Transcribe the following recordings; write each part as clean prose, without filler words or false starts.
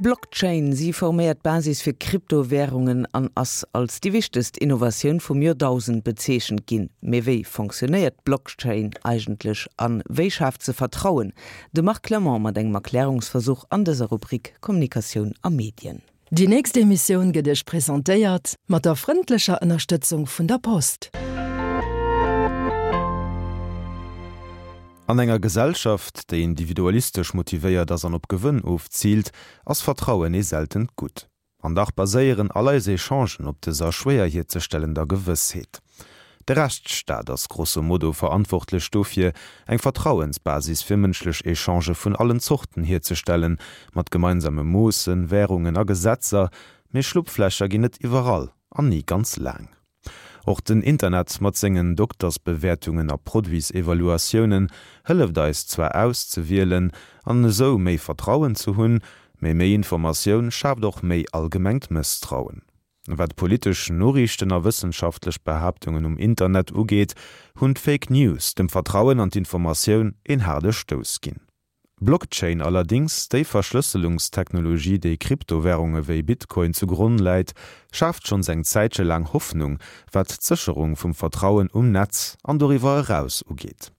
D'Blockchain, si forméiert d'Basis fir Kryptowärungen an ass als déi wichtegst Innovatioun vum Joerdausend bezeechent ginn. Mee wéi fonctionnéiert d'Blockchain eigentlech a wéi schaaft se Vertrauen? De Marc Clement mat engem Erklärungsversuch an dëser Rubrik Kommunikatioun a Medien. Déi nächst Emissioun gëtt Iech presentéiert mat der frëndlecher Ënnerstëtzung vun der Post. An enger Gesellschaft, déi individualistesch motivéiert ass an op Gewënn ofziilt, ass Vertrauen ee seltent Gutt. An dach baséieren all eis Echangen op dëser schwéier hierzestellender Gewëssheet. De Rechtsstaat ass grosso modo verantwortlech dofir, eng Vertrauensbasis fir mënschlech Echangë vun allen Zorten hierzestellen, mat gemeinsame Moossen, Wärungen a Gesetzer, mee Schlupflächer ginn et iwwerall an ni ganz laang. Och den Internet mat sengen Doktersbewäertungen a Produitsevaluatiounen hëlleft eis zwar auszewielen an esou méi Vertrauen ze hunn, mee méi Informatioun schaaft och méi allgemengt Mësstrauen. Wat politesch Noriichten a wëssenschaftlech Behaaptungen um Internet ugeet, hunn d'Fake News dem Vertrauen an d'Informatioun een haarde Stouss ginn. Blockchain allerdéngs, déi Verschlësselungstechnologie, déi Kryptowärunge wéi Bitcoin zu Gronn läit, schaaft schonns eng Zäitche laang Hoffnung, wat d'Sécherung vum Vertrauen um Netz an doriwwer eraus ugeet.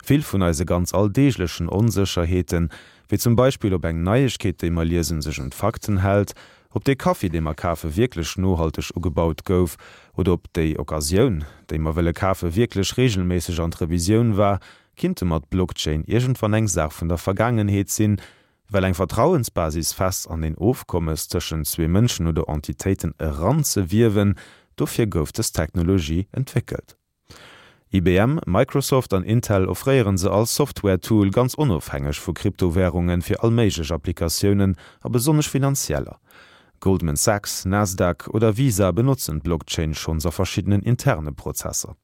Vill vun eise ganz alldeeglechen Onsécherheeten, wéi zum Beispill ob eng Neiegkeet, déi mer liesen, sech un d'Fakten hält, ob dee Kaffi, dee mer kafe wierklech nohalteg ugebaut gouf oder ob déi Occasioun, déi mer wëlle kafe wierklech reegelméisseg an d'Revisioun war, kinnte mat Blockchain iergendwann eng Saach vun der Vergaangenheet sinn, well eng Vertrauensbasis fest an een Ofkommes tëschent zwee Mënschen oder Entitéiten eranzewiewen, dofir gouf dës Technologie entwéckelt. IBM, Microsoft an Intel offréieren se als Software-Tool ganz onofhängeg vu Kryptowärunge fir all méiglech Applikatiounen a besonnesch finanzieller. Goldman Sachs, Nasdaq oder Visa benotzen d'Blockchain schonns a verschiddenen interne Prozesser.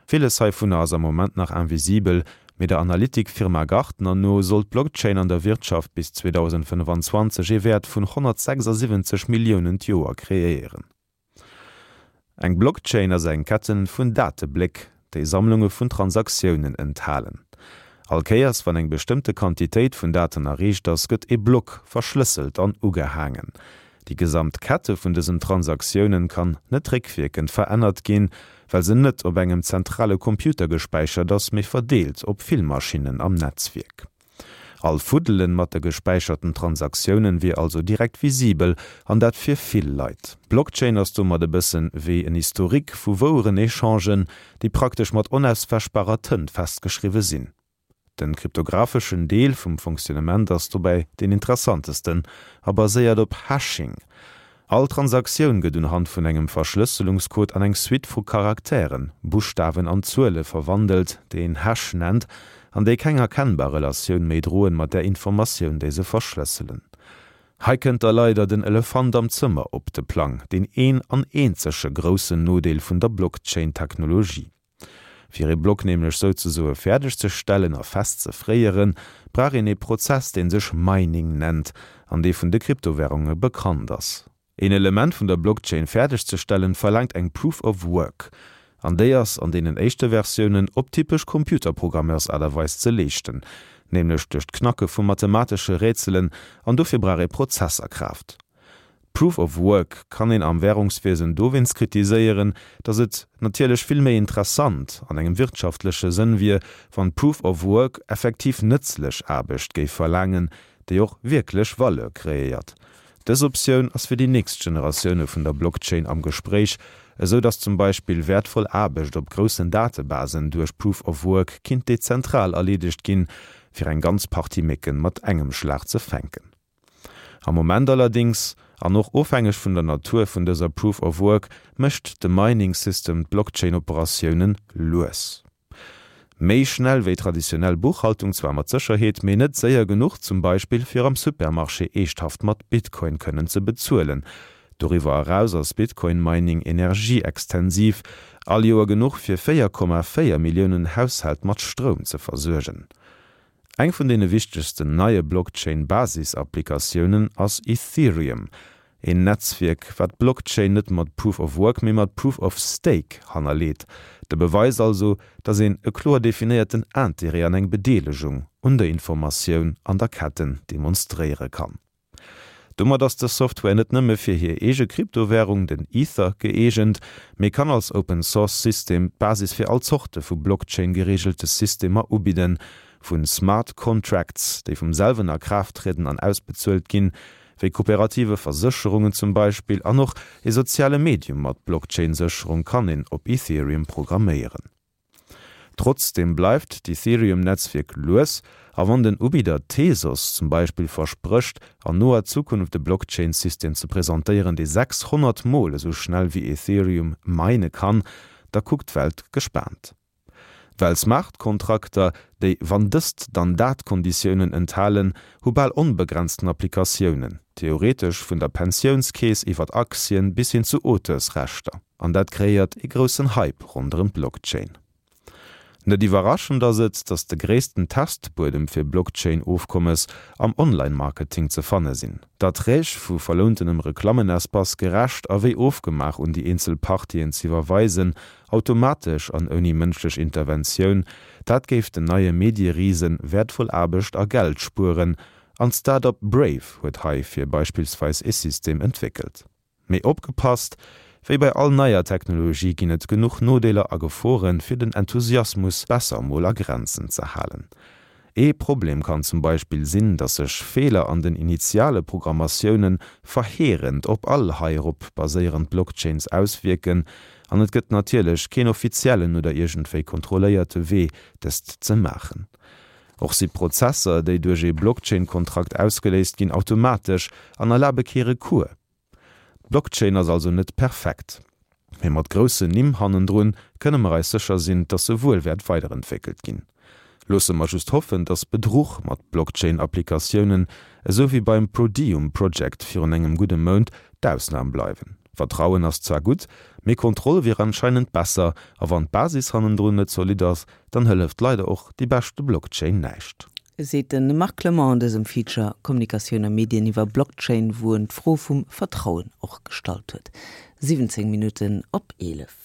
Villes heivunner ass am Moment nach invisibel, mee der Analytik-Firma Gartner no soll d'Blockchain an der Wirtschaft bis 2025 ee Wäert vun 176 Milliounen d'Joer kreéieren. Eng Blockchain ass eng Ketten vun Datebléck, déi Sammlunge vun Transaktiounen enthalen. All Kéiers wann eng bestëmmte Quantitéit vun Daten erreecht ass, gëtt e Block verschlësselt an ugehaangen. Déi gesamt Kette vun dësen Transaktiounen kann net réckwierkend verännert ginn, well se net op engem zentrale Computer gespäichert ass, mee verdeelt op vill Maschinnen am Netzwierk. All Fuddelen mat de gespäicherten Transaktiounen wier also direkt visibel, an dat fir vill Leit. D'Blockchain ass domat e bëssen wéi en Historique vu woueren Echangen, déi praktesch mat onauswäschbarer Tënt festgeschriwwe sinn. Den kryptographeschen Deel vum Fonctionnement ass dobäi deen interessantesten a baséiert op Hashing. All Transaktioun gëtt unhand vun engem Verschlësselungscode an eng Suite vu Charakteren, Buschtawen an Zuele verwandelt, déi een Hash nennt, an déi keng erkennbar Relatioun méi droen mat där Informatioun, déi se verschlësselen. Hei kënnt da leider den Elefant am Zëmmer op de Plang, deen een an eenzege groussen Nodeel vun der Blockchain-Technologie. Fir ee Block nämlech souzesoe fäerdeg ze stellen a fest ze fréieren, brauch een ee Prozess, dee sech Mining nennt an dee vun de Kryptowärunge bekannt ass. Een Element vun der Blockchain fäerdeg ze stellen, verlaangt eng Proof of Work, an déi ass an deenen éischte Versiounen op typesch Computerprogrammeurs-Aart a Weis ze leeschten, nämlech duerch d'Knacke vu mathematesche Rätselen, an dofir brauch ee Prozesserkraaft. Proof of Work kann een am Währungswiesen dowéinst kritiséieren, datt et natierlech vill méi interessant an engem wirtschaftleche Sënn wier, wann Proof of Work effektiv nëtzlech Aarbecht géif verlaangen, déi och wierklech Valeur kreéiert. Dës Optioun ass fir déi nächst Generatioune vun der Blockchain am Gespréich, esou datt zum Beispill wäertvoll Aarbecht op groussen Datebasen duerch Proof of Work kinnt dezentral erleedegt ginn, fir eng ganz Partie Mécken mat engem Schlag ze fänken. Am Moment allerdings, an och ofhängeg vun der Natur vun dëser Proof of Work, mécht de Mining System d'Blockchain-Operatiounen lues. Méi schnell wéi traditionell Buchhaltung zwar mat Sécherheet, mee net séier genuch zum Beispill fir am Supermarché eeschthaft mat Bitcoin kënnen ze bezuelen. Doriwwer eraus ass Bitcoin-Mining energieextensiv, all Joer genuch fir 4,4 Milliounen Haushält mat Stroum ze versuergen. Eng vun deene wichtegsten neie Blockchain-Basis-Applikatiounen ass Ethereum, een Netzwierk, wat d'Blockchain net mat Proof of Work, mee mat Proof of Stake hannerleet. De Beweis also, datt een e kloer definéierten Interêt an eng Bedeelegung un der Informatioun an der Ketten demonstréiere kann. Domat ass dës Software net nëmme fir hir eege Kryptowärung, den Ether, gëeegent, mee kann als Open Source System d'Basis fir all Zorte vu Blockchain-gereegelte Systemer ubidden, vu Smart Contracts, déi vum selwen a Kraaft trieden an ausbezuelt ginn, wéi kooperative Versécherungen zum Beispill, an och e soziale Medium mat Blockchain-Sécherung kann een op Ethereum programméieren. Trotzdeem bleift d'Ethereum-Netzwierk lues, a wann den Ubidder Tezos zum Beispill versprécht, an noer Zukunft e Blockchain-System ze presentéieren, dee 600 Mol esou schnell wéi Ethereum mine kann, da kuckt d'Welt gespaant. Well Smart-Kontrakter, déi wann dëst, dann dat Konditiounen enthalen, hu bal onbegrenzten Applikatiounen, theoretesch vun der Pensiounskeess iwwert Aktien bis hin zu Auteursrechter. An dat kreéiert ee groussen Hype ronderëm d'Blockchain. Net iwwerraschend ass et, datt de gréissten Testbuedem fir Blockchain-Ofkommes am Online-Marketing ze fanne sinn. D'Erträg vu verlountenem Reklammenespace gerecht a wéi ofgemaach un déi eenzel Partien z'iwwerweisen, automatesch an ouni mënschlech Interventioun, dat géif den neie Medierisen wäertvoll Aarbecht a Geld spueren. An d'Start-up Brave huet heifir beispillsweis ee System entwéckelt. Mee opgepasst, Wéi bei all neier Technologie ginn et genuch Nodeeler a Geforen, fir den Enthusiasmus besser mol a Grenzen ze halen. Ee Problem kann zum Beispill sinn, dass sech Feeler an den initiale Programmatiounen verheerend op all heirop baséierend Blockchains auswierken, an et gëtt natierlech keen offiziellen oder iergendwéi kontrolléierte Wee dëst ze maachen. Och si Prozesser, déi duerch ee Blockchain-Kontrakt ausgeléist ginn, automatesch an erlabe kee Recours. D'Blockchain ass also net perfekt, mee mat groussen Nimm hannendrun kënne mer eis sécher sinn, dass se wuel wäert weiderentwéckelt ginn. Loosse mer just hoffen, dass Bedruch mat Blockchain-Applikatiounen, esou wéi beim Prodium Project virun engem gudde Mount, d'Ausnam bleiwen. Vertrauen ass zwar gutt, mee Kontroll wier anscheinend besser, a wann d'Basis hannendrun net zolidd ass, dann hëlleft leider och déi beschte Blockchain näischt. Seet de Marc Clement an dësem Feature Kommunikatioun a Medien iwwer Blockchain, wou en d'Fro vum Vertrauen och gestallt huet. 17 Minutten op 11.